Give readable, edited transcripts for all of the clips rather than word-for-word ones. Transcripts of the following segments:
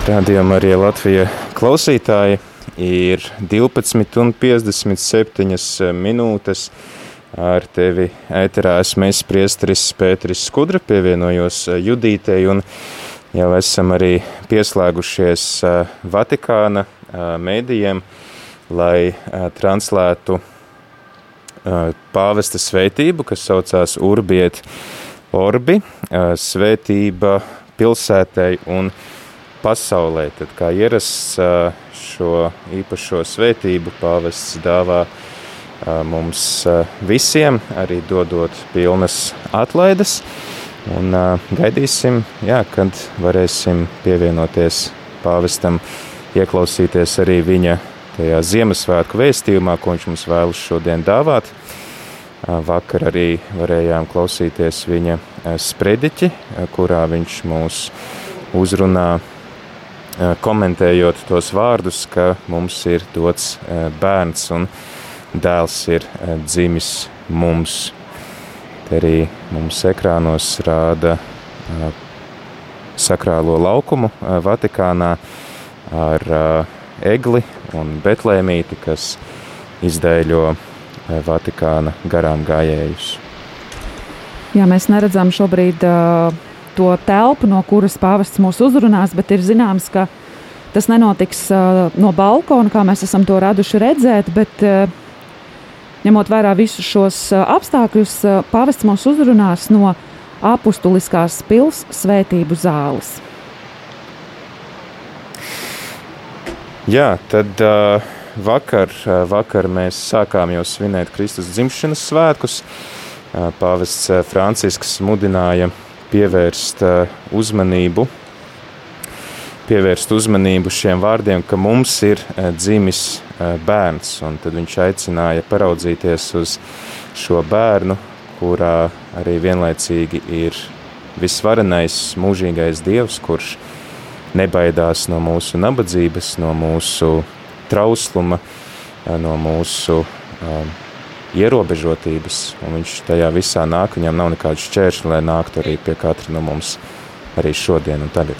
Rādījumā arī Latvija klausītāji ir 12:57 minūtes. Ar tevi ēterā esmu es, priesteris Pēteris Skudra, pievienojos Judītei un jau esam arī pieslēgušies Vatikāna mēdījiem, lai translētu pāvesta svētību, kas saucās Urbi et Orbi, svētība pilsētai un pasaulē. Tad kā ierasts šo īpašo svētību pāvests dāvā mums visiem, arī dodot pilnas atlaides. Un gaidīsim, kad varēsim pievienoties pāvestam, ieklausīties arī viņa tajā Ziemassvētku vēstījumā, ko viņš mums vēlas šodien dāvāt. Vakar arī varējām klausīties viņa sprediķi, kurā viņš mūs uzrunā, komentējot tos vārdus, ka mums ir dots bērns un dēls ir dzimis mums. Te arī mums ekrānos rāda sakrālo laukumu Vatikānā ar egli un betlēmīti, kas izdēļo Vatikāna garām gājējus. Jā, mēs neredzam šobrīd to telpu, no kuras pāvests mūs uzrunās, bet ir zināms, ka tas nenotiks no balkona, kā mēs esam to raduši redzēt, bet ņemot vērā visus šos apstākļus, pāvests mūs uzrunās no apustuliskās pils svētību zāles. Jā, tad vakar mēs sākām jau svinēt Kristus dzimšanas svētkus. Pāvests Francisks mudināja pievērst uzmanību šiem vārdiem, ka mums ir dzimis bērns, un tad viņš aicināja paraudzīties uz šo bērnu, kurā arī vienlaicīgi ir visvarenais mūžīgais Dievs, kurš nebaidās no mūsu nabadzības, no mūsu trausluma, no mūsu ierobežotības, un viņš tajā visā nāk, viņam nav nekādu šķēršļu, lai nāktu arī pie katra no mums arī šodien un tagad.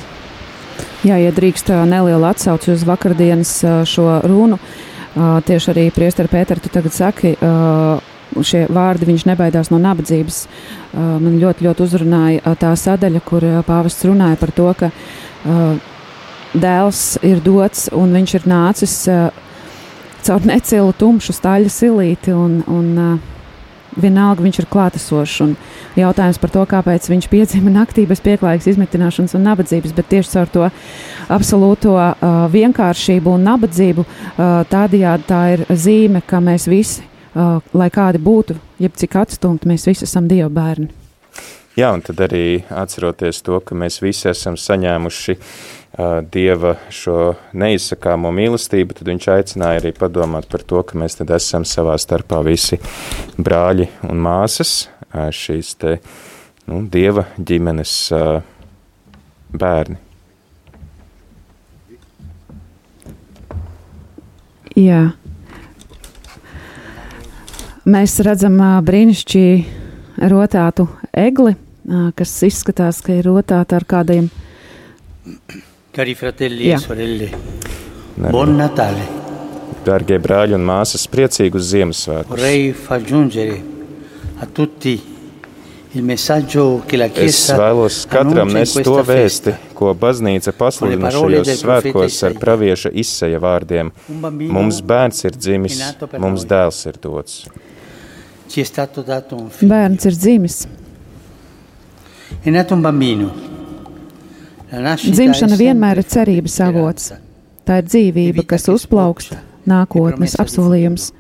Jā, ja drīkst nelielu atsauci uz vakardienas šo runu, tieši arī priesteri Pēteri, tu tagad saki, šie vārdi, viņš nebaidās no nabadzības. Man ļoti, ļoti uzrunāja tā sadaļa, kur pāvests runāja par to, ka dēls ir dots un viņš ir nācis caur necilu tumšu staļa silīti un vienalga viņš ir klātesošs. Un jautājums par to, kāpēc viņš piedzima naktī bez pieklājīgas izmitināšanas un nabadzības, bet tieši caur to absolūto vienkāršību un nabadzību tādējādi tā ir zīme, ka mēs visi, lai kādi būtu, jeb cik atstumti, mēs visi esam Dieva bērni. Jā, un tad arī atceroties to, ka mēs visi esam saņēmuši Dieva šo neizsakāmo mīlestību, tad viņš aicināja arī padomāt par to, ka mēs tad esam savā starpā visi brāļi un māsas, šīs te Dieva ģimenes bērni. Jā. Mēs redzam brīnišķīgi rotātu egli, kas izskatās, ka ir rotāta ar kādiem. Cari fratelli e sorelle, buon Natale. Dārgie brāļi un māsas, priecīgus Ziemassvētkus. Vorrei far giungere a tutti il messaggio che la Es Chiesa vēlos katram annuncia in nest to questa vēsti, festa. ko baznīca pasludina šajos svētkos ar pravieša Isaja vārdiem. Mums bērns ir dzimis, mums dēls ir dots. Ci è stato dato un figlio. Bērns ir dzimis. È nato un bambino. La nascita Dzimšana è vienmēr ir sempre cerības avots. speranza. Tā ir dzīvība, kas uzplaukst, nākotnes apsolījums.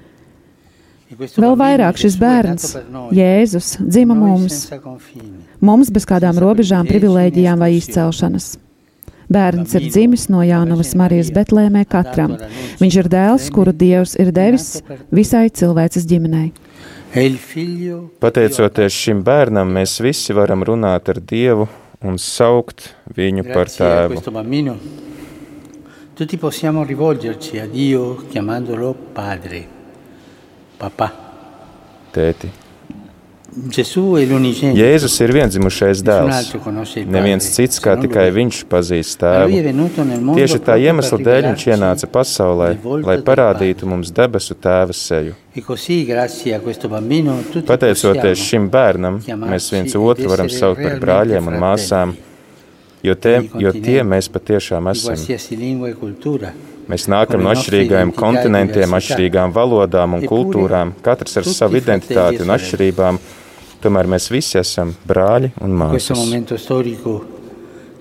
E questo Vēl bambino, vairāk šis Gesù, è bērns, nato per noi, Jēzus, dzima noi mums, senza confini. mums bez kādām robežām, privilēģijām vai izcelšanas. Bērns ir dzimis no Jānavas Marijas Betlēmē katram. Viņš ir dēls, kuru Dievs ir devis visai cilvēces ģimenei. E il figlio Pateicoties šim bērnam, mēs visi varam runāt ar Dievu un saukt viņu par grazie a tēvu. questo bambino tutti possiamo rivolgerci a Dio chiamandolo padre, papà. Tēti. Jēzus ir viendzimušais dēls. Neviens cits kā tikai viņš pazīst tēvu. Tieši tā iemesla dēļ viņš ienāca pasaulē, lai parādītu mums debesu tēva seju. Pateicoties šim bērnam, mēs viens otru varam saukt par brāļiem un māsām, jo tie mēs patiešām esam. Mēs nākam no atšķirīgajiem kontinentiem, atšķirīgām valodām un kultūrām, katrs ar savu identitāti un atšķirībām. Tomēr mēs visi esam brāļi un māsas.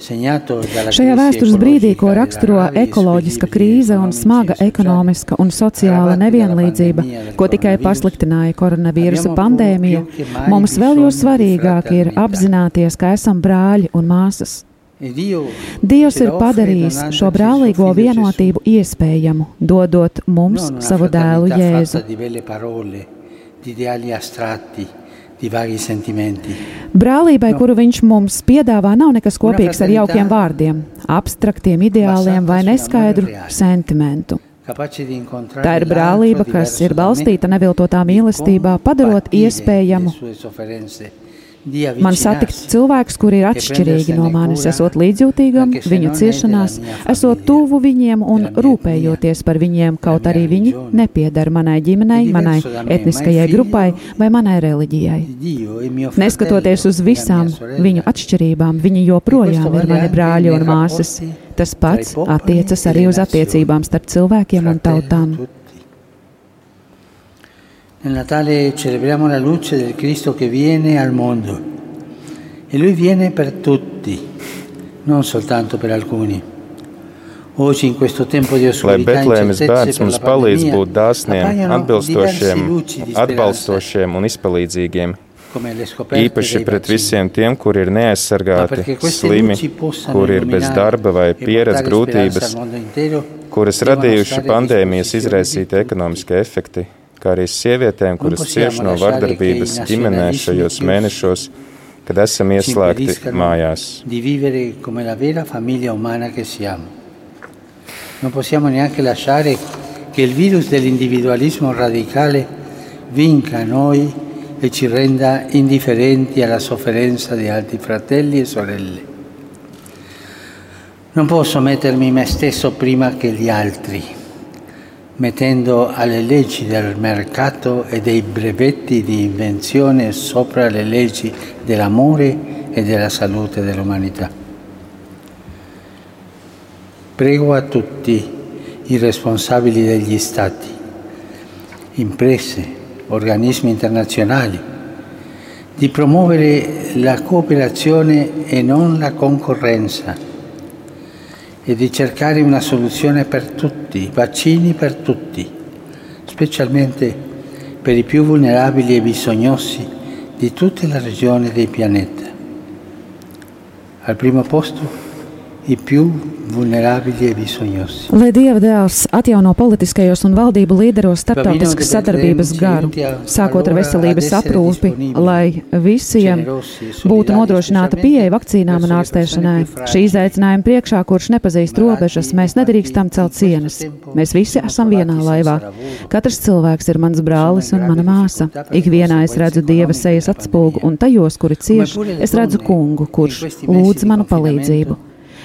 Šajā vēstures brīdī, ko raksturo ekoloģiska krīze un smaga ekonomiska un sociāla nevienlīdzība, ko tikai pasliktināja koronavīrusa pandēmija, mums vēl jo svarīgāk ir apzināties, ka esam brāļi un māsas. Dievs ir padarījis šo brālīgo vienotību iespējamu, dodot mums savu dēlu Jēzu. Brālībai, kuru viņš mums piedāvā, nav nekas kopīgs ar jaukiem vārdiem, abstraktiem ideāliem vai neskaidru sentimentu. Tā ir brālība, kas ir balstīta neviltotā mīlestībā, padarot iespējamu man satikt cilvēkus, kuri ir atšķirīgi no manis, esot līdzjūtīgam viņu ciešanās, esot tuvu viņiem un rūpējoties par viņiem, kaut arī viņi nepiedara manai ģimenei, manai etniskajai grupai vai manai reliģijai. Neskatoties uz visām viņu atšķirībām, viņi joprojām ir mani brāļi un māsas. Tas pats attiecas arī uz attiecībām starp cilvēkiem un tautām. Nel Natale celebriamo la luce del Cristo che viene al mondo e Lui viene per tutti, non soltanto per alcuni. Oggi in questo tempo di oscurità e incertezze per la pandemia appaiono diversi atbalstošiem un izpalīdzīgiem, īpaši pret visiem tiem, kuri ir neaizsargāti, slimi, kuri ir bez darba vai pieredz grūtības, kuras radījuši pandēmijas izraisīti ekonomiskie efekti, kā arī sievietēm, kuras cieš no vardarbības ģimenē šajos mēnešos, kad esam ieslēgti mājās. Non possiamo neanche lasciare che il virus dell'individualismo radicale vinca noi e ci renda indifferenti alla sofferenza di altri fratelli e sorelle. Non posso mettermi me stesso prima che gli altri, mettendo alle leggi del mercato e dei brevetti di invenzione sopra le leggi dell'amore e della salute dell'umanità. Prego a tutti i responsabili degli Stati, imprese, organismi internazionali, di promuovere la cooperazione e non la concorrenza, e di cercare una soluzione per tutti, vaccini per tutti, specialmente per i più vulnerabili e bisognosi di tutte le regioni del pianeta. Al primo posto, i più vulnerabili e bisognosi. Lai Dieva dēls atjauno politiskajos un valdību līderos starptautiskas sadarbības garu, sākot ar veselības aprūpi, lai visiem būtu nodrošināta pieeja vakcīnām un ārstēšanai. Šī izaicinājuma priekšā, kurš nepazīst robežas, mēs nedrīkstam celt sienas. Mēs visi esam vienā laivā. Katrs cilvēks ir mans brālis un mana māsa. Ikvienā es redzu Dieva sejas atspulgu, un tajos, kuri cieš, es redzu kungu, kurš lūdz manu palīdzību.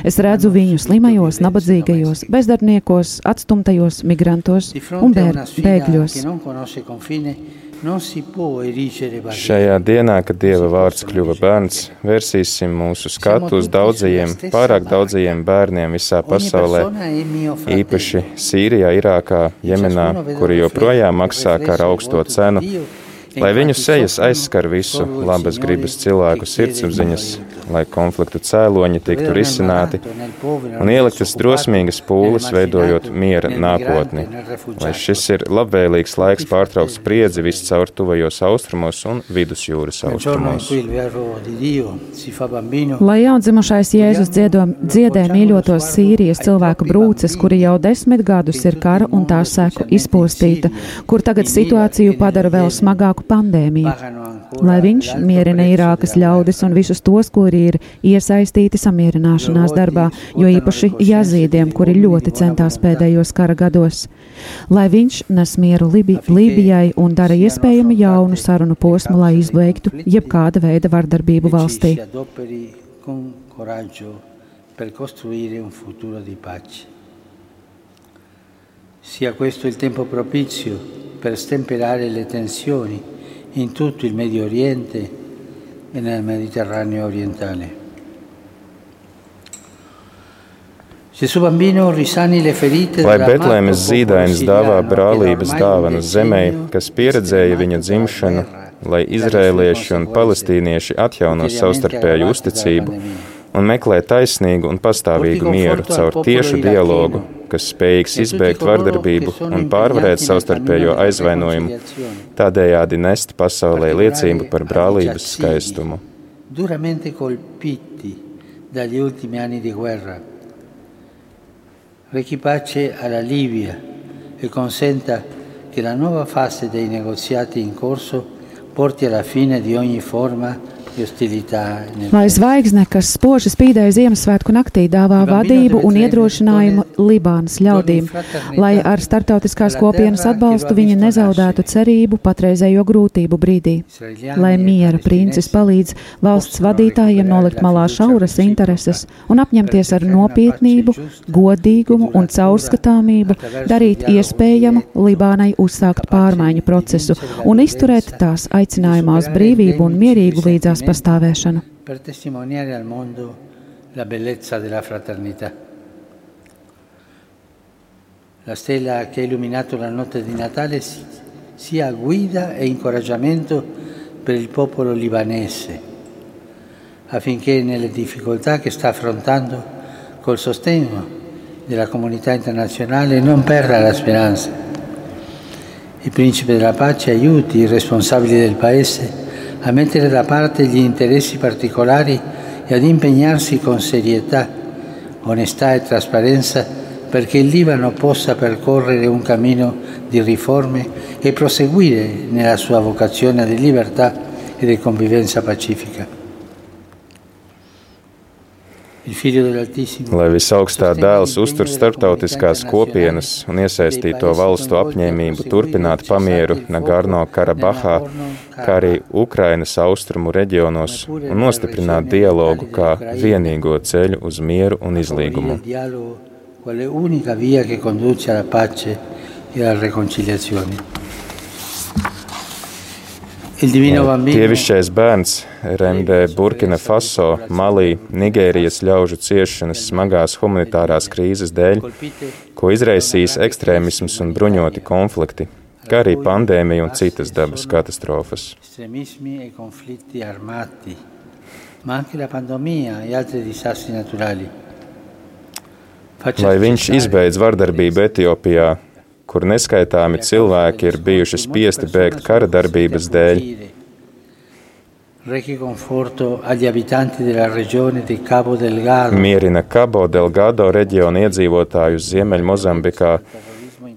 Es redzu viņu slimajos, nabadzīgajos, bezdarbniekos, atstumtajos, migrantos un bēgļos. Šajā dienā, kad Dieva vārds kļuva bērns, vērsīsim mūsu skatu uz daudzajiem, pārāk daudzajiem bērniem visā pasaulē, īpaši Sīrijā, Irākā, Jemenā, kuri joprojām maksā kara augsto cenu, lai viņu sejas aizskar visu labas gribas cilvēku sirdsapziņas, lai konfliktu cēloņi tiktu risināti un ieliktas drosmīgas pūles, veidojot miera nākotni. Lai šis ir labvēlīgs laiks pārtraukt spriedzi viscaur tuvajos austrumos un vidusjūras austrumos. Lai jaundzimušais Jēzus dziedē mīļotos Sīrijas cilvēku brūces, kuri jau 10 gadus ir kara un tā seku izpostīta, kur tagad situāciju padara vēl smagāku pandēmija, lai viņš mierina Irākas ļaudis un visus tos, kuri ir iesaistīti samierināšanās darbā, jo īpaši jazīdiem, kuri ļoti centās pēdējos kara gados. Lai viņš nes mieru Lībijai un dara iespējami jaunu sarunu posmu, lai izbeigtu jebkāda veida vardarbību valstī. Per costruire un futuro di pace. Sia questo il tempo propizio per stemperare le tensioni in tutto il Medio Oriente e nel Mediterraneo orientale. Gesù bambino risani le ferite Lai Betlēmes zīdainis dāvā brālības dāvanu zemei, kas pieredzēja viņa dzimšanu, lai izrēlieši un palestīnieši atjauno savstarpēju uzticību un meklē taisnīgu un pastāvīgu mieru caur tiešu dialogu, kas spējīgs izbeigt vardarbību un pārvarēt savstarpējo aizvainojumu, tādējādi nest pasaulē liecību par brālības skaistumu. Duramente colpiti dagli ultimi anni di guerra, rechi pace alla Libia e consenta che la nuova fase dei negoziati in corso porti alla fine di ogni forma. Lai zvaigzne, kas spoži spīdēja Ziemassvētku naktī, dāvā vadību un iedrošinājumu Libānas ļaudīm, lai ar starptautiskās kopienas atbalstu viņi nezaudētu cerību patreizējo grūtību brīdī. Lai miera princis palīdz valsts vadītājiem nolikt malā šauras intereses un apņemties ar nopietnību, godīgumu un caurskatāmību, darīt iespējamu Libānai uzsākt pārmaiņu procesu un izturēt tās aicinājumā uz brīvību un mierīgu līdzās pastāvēšanu. Per testimoniare al mondo la bellezza della fraternità. La stella che ha illuminato la notte di Natale sia guida e incoraggiamento per il popolo libanese, affinché nelle difficoltà che sta affrontando col sostegno della comunità internazionale non perda la speranza. Il principe della pace aiuti i responsabili del paese a mettere da parte gli interessi particolari e ad impegnarsi con serietà, onestà e trasparenza perché il Libano possa percorrere un cammino di riforme e proseguire nella sua vocazione di libertà e di convivenza pacifica. Lai visaugstā dēls uztur starptautiskās kopienas un iesaistīto valstu apņēmību turpināt pamieru Nagorno-Karabahā, kā arī Ukrainas austrumu reģionos un nostiprināt dialogu kā vienīgo ceļu uz mieru un izlīgumu. Dievišķais bērns remdē Burkina Faso, Malī, Nigērijas ļaužu ciešanas smagās humanitārās krīzes dēļ, ko izraisīs ekstrēmisms un bruņoti konflikti, kā arī pandēmija un citas dabas katastrofas. Lai viņš izbeidz vardarbību Etiopijā, kur neskaitāmi cilvēki ir bijuši spiesti bēgt kara darbības dēļ. Mierina Cabo Delgado reģiona iedzīvotājus Ziemeļmozambikā,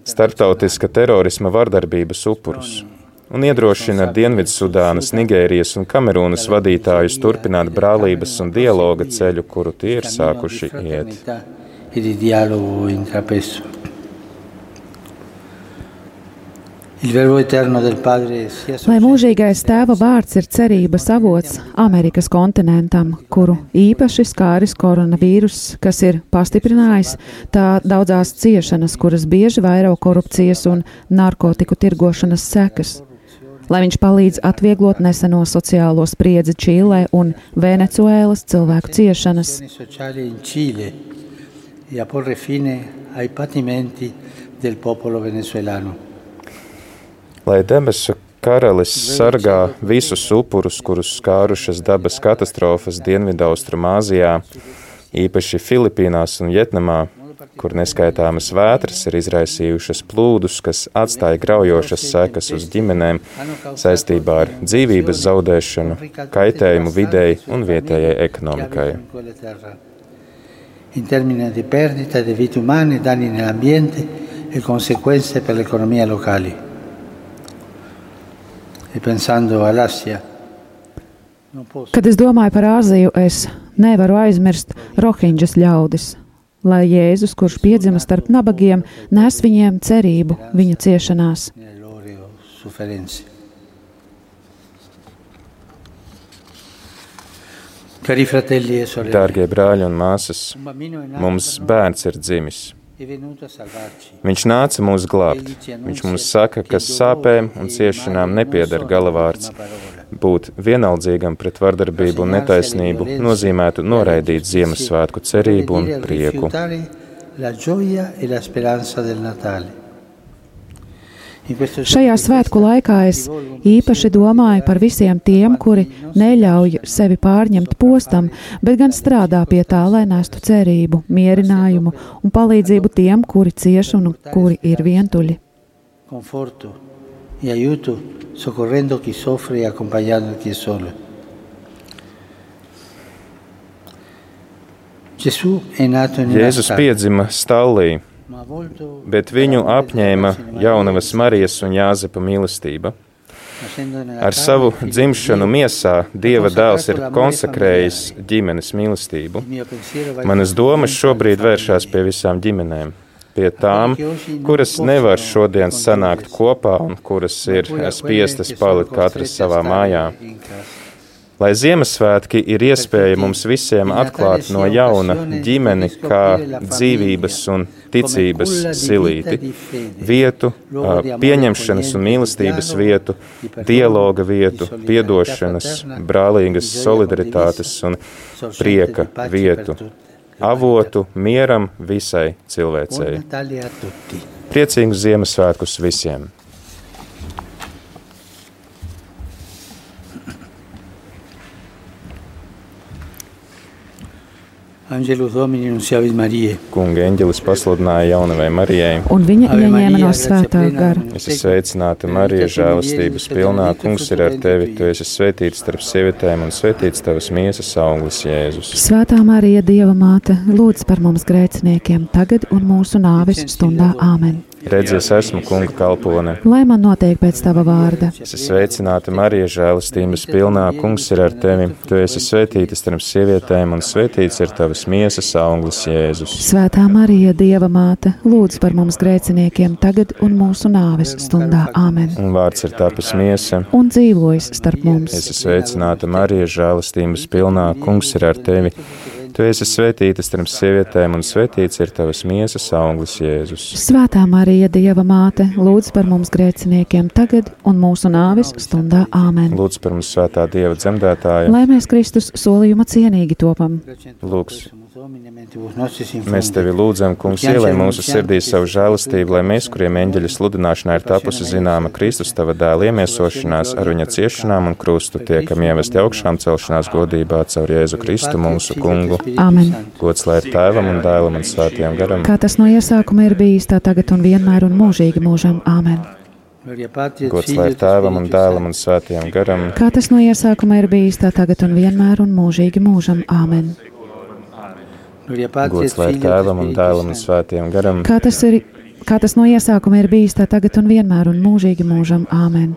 starptautiska terorisma vardarbības upurus un iedrošina Dienvidsudānas, Nigērijas un Kamerūnas vadītājus turpināt brālības un dialoga ceļu, kuru tie ir sākuši iet. Lai mūžīgais Tēva vārds ir cerības avots Amerikas kontinentam, kuru īpaši skāris koronavīruss, kas ir pastiprinājis tā daudzās ciešanas, kuras bieži vairo korupcijas un narkotiku tirgošanas sekas. Lai viņš palīdz atvieglot neseno sociālo spriedzi Čīlē un Venecuēlas cilvēku ciešanas. Lai debesu karalis sargā visus upurus, kurus skārušas dabas katastrofas Dienvidaustrumāzijā, īpaši Filipīnās un Vjetnamā, kur neskaitāmas vētras ir izraisījušas plūdus, kas atstāja graujošas sekas uz ģimenēm saistībā ar dzīvības zaudēšanu, kaitējumu videi un vietējai ekonomikai. In termini di perdita di vite umane, danni nell'ambiente e conseguenze per l'economia locale. Kad es domāju par Āziju, es nevaru aizmirst Rohinģas ļaudis, lai Jēzus, kurš piedzima starp nabagiem, nes viņiem cerību viņu ciešanās. Dārgie brāļi un māsas, mums bērns ir dzimis. Viņš nāca mūs glābt. Viņš mums saka, ka sāpēm un ciešanām nepieder galavārds. Būt vienaldzīgam pret vardarbību un netaisnību nozīmētu noraidīt Ziemassvētku cerību un prieku. Šajā svētku laikā es īpaši domāju par visiem tiem, kuri neļauj sevi pārņemt postam, bet gan strādā pie tā, lai nestu cerību, mierinājumu un palīdzību tiem, kuri cieš un kuri ir vientuļi. Jēzus piedzima stallī, bet viņu apņēma jaunavas Marijas un Jāzepa mīlestība. Ar savu dzimšanu miesā Dieva dēls ir konsekrējis ģimenes mīlestību. Manas domas šobrīd vēršās pie visām ģimenēm, pie tām, kuras nevar šodien sanākt kopā un kuras ir spiestas palikt katras savā mājā. Lai Ziemassvētki ir iespēja mums visiem atklāt no jauna ģimeni kā dzīvības un ticības silīti, vietu, pieņemšanas un mīlestības vietu, dialoga vietu, piedošanas, brālīgas solidaritātes un prieka vietu, avotu mieram visai cilvēcei. Priecīgus Ziemassvētkus visiem! Angelus Domini nunciavit Mariae. Kunga eņģelis pasludināja jaunavai Marijai. Un viņa ieņēma no svētā gara. Esi sveicināta, Marija, žēlastības pilnā. Kungs ir ar tevi. Tu esi svētīta starp sievietēm un svētīts tavas miesas auglis, Jēzus. Svētā Marija, Dieva māte, lūdz par mums grēciniekiem, tagad un mūsu nāves stundā. Āmen. Redzi, es esmu Kunga kalpone. Lai man notiek pēc tava vārda. Esi sveicināta, Marija, žēlastības pilnā. Kungs ir ar tevi. Tu esi svētīta starp sievietēm un svētīts ir tavas miesas auglis, Jēzus. Svētā Marija, Dieva māte, lūdz par mums grēciniekiem, tagad un mūsu nāves stundā. Āmen. Un vārds ir tapis miesa un dzīvojis starp mums. Esi sveicināta, Marija, žēlastības pilnā. Kungs ir ar tevi. Tu esi svētīta starp sievietēm un svētīts ir tavas miesas auglis, Jēzus. Svētā Marija, Dieva māte, lūdz par mums grēciniekiem tagad un mūsu nāves stundā. Āmen. Lūdz par mums, svētā Dieva dzemdētāja. Lai mēs Kristus solījuma cienīgi topam. Lūgs. Mēs tevi lūdzam, Kungs, ielej mūsu sirdīs savu žēlastību, lai mēs, kuriem eņģeļa sludināšanā ir tapusi zināma Kristus tava dēla iemiesošanās, ar viņa ciešanām un krustu tiekam ievesti augšām celšanās godībā caur Jēzu Kristu mūsu Kungu. Āmen. Gods lai ir Tēvam un Dēlam un Svētajam garam. Kā tas no iesākuma ir bijis, tā tagad un vienmēr un mūžīgi mūžam. Āmen. Gods lai ir Tēvam un Dēlam un Svētajam garam. Kā tas no iesākuma ir bijis, tā tagad un vienmēr un mūžīgi mūžam. Āmen. Gods lai ir Tēvam un Dēlam un Svētajam garam. Kā tas no iesākuma ir bijis, tā tagad un vienmēr un mūžīgi mūžam. Āmen.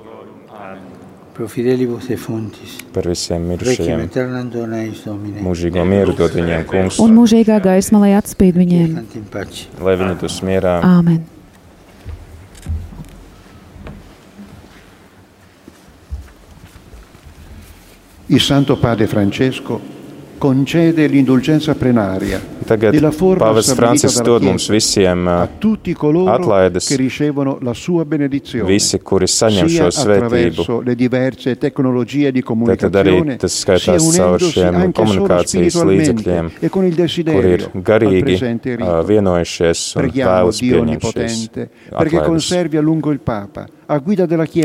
Par visiem mirušajiem. Mūžīgo mieru dod viņiem, Kungs. Un mūžīgā gaisma, lai atspīd viņiem. Lai viņi dus mierā. Āmen. Il Santo Padre Francesco concede l'indulgenza plenaria. Tagad Pāvests Francisks dod mums visiem atlaides, visi, kuri saņem šo svētību. Tad arī tas skaitās caur šiem komunikācijas līdzekļiem, kuri ir garīgi vienojušies un vēlas pieņemšies atlaides.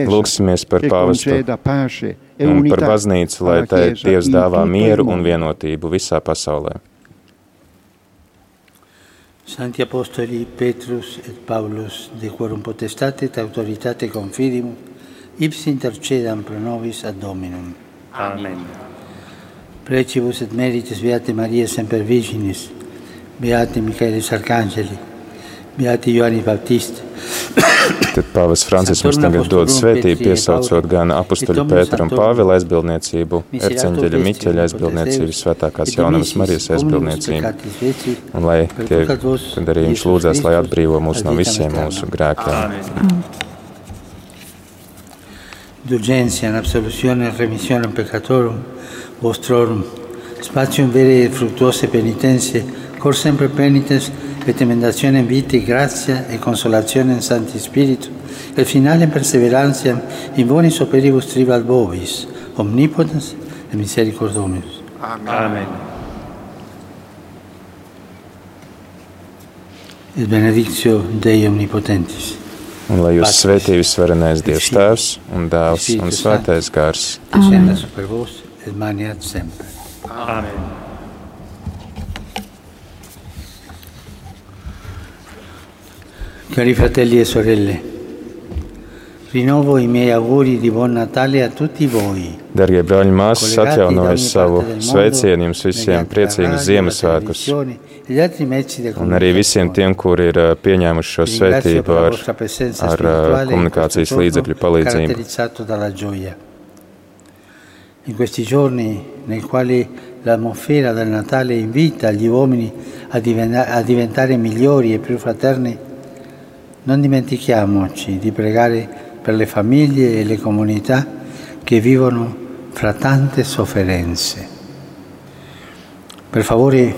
Lūksimies par pāvestu un par baznīcu, lai tai Dievs dāvā mieru un vienotību visā pasaulē. Santi Apostoli Petrus et Paulus, de quorum potestate et autoritate confidimus, ipsi intercedam pro nobis ad Dominum. Amen. Precibus et merites Beate Maria Semper Virginis, Beate Michaelis Arcangeli, Beate Ioannis Baptiste, Tad pāvests Francisks mums tagad dod svētību, piesaucot gan apustuļu Pētera un Pāvila aizbildniecību, erceņģeļa Miķeļa aizbildniecību, Svētākās Jaunavas Marijas aizbildniecību, un lai tie, kad arī viņš lūdzās, lai atbrīvo mūs no visiem mūsu grēkiem. Indulgencia, absoluzione, remissione peccatorum, vostrorum, spatium vere e fruttuose penitenze, cor sempre penitens, et emendazione in vita, grazia e consolazione in Santi Spiritu, e finale perseveranza in bonis operibus tribat vobis, omnipotens et misericordomus. Amen. Et benedictio Dei omnipotentis. Un lai jūs svētī visvarenais Dievs Tēvs un Dēls un Svētais Gars. Descenda super vos et maniat semper. Amen. Cari fratelli e sorelle, rinnovo i miei auguri di buon Natale a tutti voi. Dargie brāļi un māsas, atjaunoju savu sveicienu jums visiem, priecīgus Ziemassvētkus. Un arī visiem tiem, kuri ir pieņēmuši šo svētību ar komunikācijas līdzekļu palīdzību. In questi giorni nei quali l'atmosfera del Natale invita gli uomini a diventare migliori e più fraterni, non dimentichiamoci di pregare per le famiglie e le comunità che vivono fra tante sofferenze. Per favore,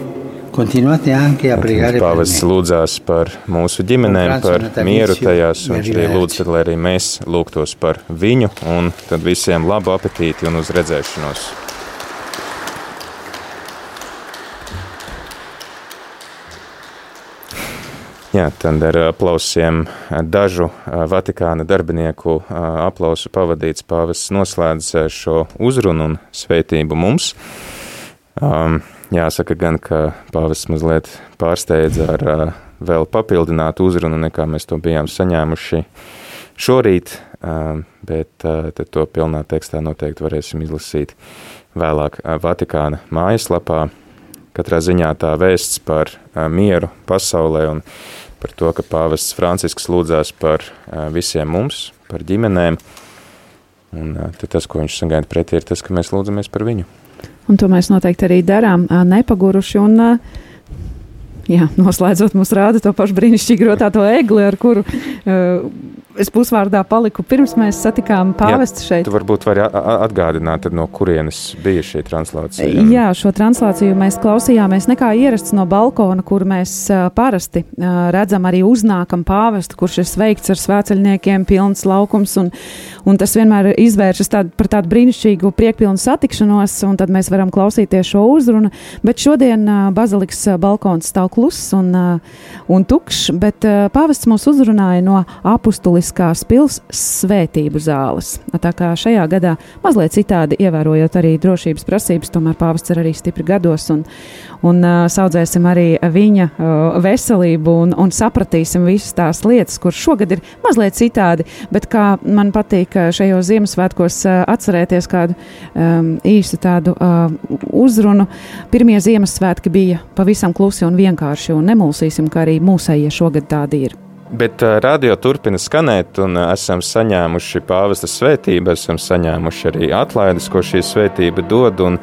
continuate anche a pregare per Pāvests lūdzās par mūsu ģimenēm, par mieru tajās, un viņš arī lūdz, lai arī mēs lūgtos par viņu, un tad visiem labu apetīti un uz redzēšanos. Jā, tad ar aplausiem dažu Vatikāna darbinieku aplausu pavadīts pāvests noslēdz šo uzrunu un svētību mums. Jāsaka gan, ka pāvests mazliet pārsteidza ar vēl papildinātu uzrunu, nekā mēs to bijām saņēmuši šorīt, bet tad to pilnā tekstā noteikti varēsim izlasīt vēlāk Vatikāna mājaslapā. Katrā ziņā tā vēsts par mieru pasaulē un par to, ka pāvests Francisks lūdzās par visiem mums, par ģimenēm. Un tad tas, ko viņš sagaida pretī, ir tas, ka mēs lūdzamies par viņu. Un to mēs noteikti arī darām, nepaguruši. Un, jā, noslēdzot, mums rāda to pašu brīnišķīgi rotāto egli, ar kuru es pusvārdā paliku pirms mēs satikām pāvestu šeit. Tu varbūt vari atgādināt, tad no kurienes bija šī translācija? Jā, šo translāciju mēs klausījāmies nekā ierasts no balkona, kur mēs parasti redzam arī uznākam pāvestu, kurš ir sveikts ar svēceļniekiem, pilns laukums, un tas vienmēr izvēršas par tādu brīnišķīgu priekpilnu satikšanos, un tad mēs varam klausīties šo uzrunu, bet šodien bazilikas balkons stāv kluss un tukšs, bet pāvests mūs uzrunāja no apustuliskās pils svētību zāles. Tā kā šajā gadā mazliet citādi ievērojot arī drošības prasības, tomēr pāvests ir arī stipri gados un saudzēsim arī viņa veselību un sapratīsim visas tās lietas, kur šogad ir mazliet citādi, bet kā man patīk šajos Ziemassvētkos atcerēties kādu īstu tādu uzrunu. Pirmie Ziemassvētki bija pavisam klusi un vienkārši, un nemulsīsim, ka arī mūsējie šogad tādi ir. Bet radio turpina skanēt, un esam saņēmuši pāvesta svētību, esam saņēmuši arī atlaides, ko šī svētība dod, un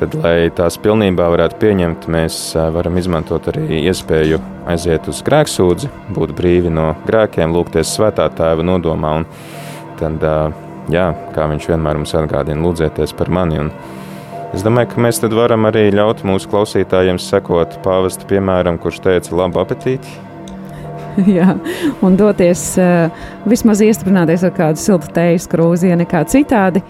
tad, lai tās pilnībā varētu pieņemt, mēs varam izmantot arī iespēju aiziet uz grēksūdzi, būt brīvi no grēkiem, lūgties Svētā Tēva nodomā, un tad, jā, kā viņš vienmēr mums atgādina, lūdzieties par mani, un es domāju, ka mēs tad varam arī ļaut mūsu klausītājiem sekot pāvesta piemēram, kurš teica labu apetīti. Jā, un doties vismaz iestrunāties ar kādu siltu tejas krūzi, ja nekā citādi.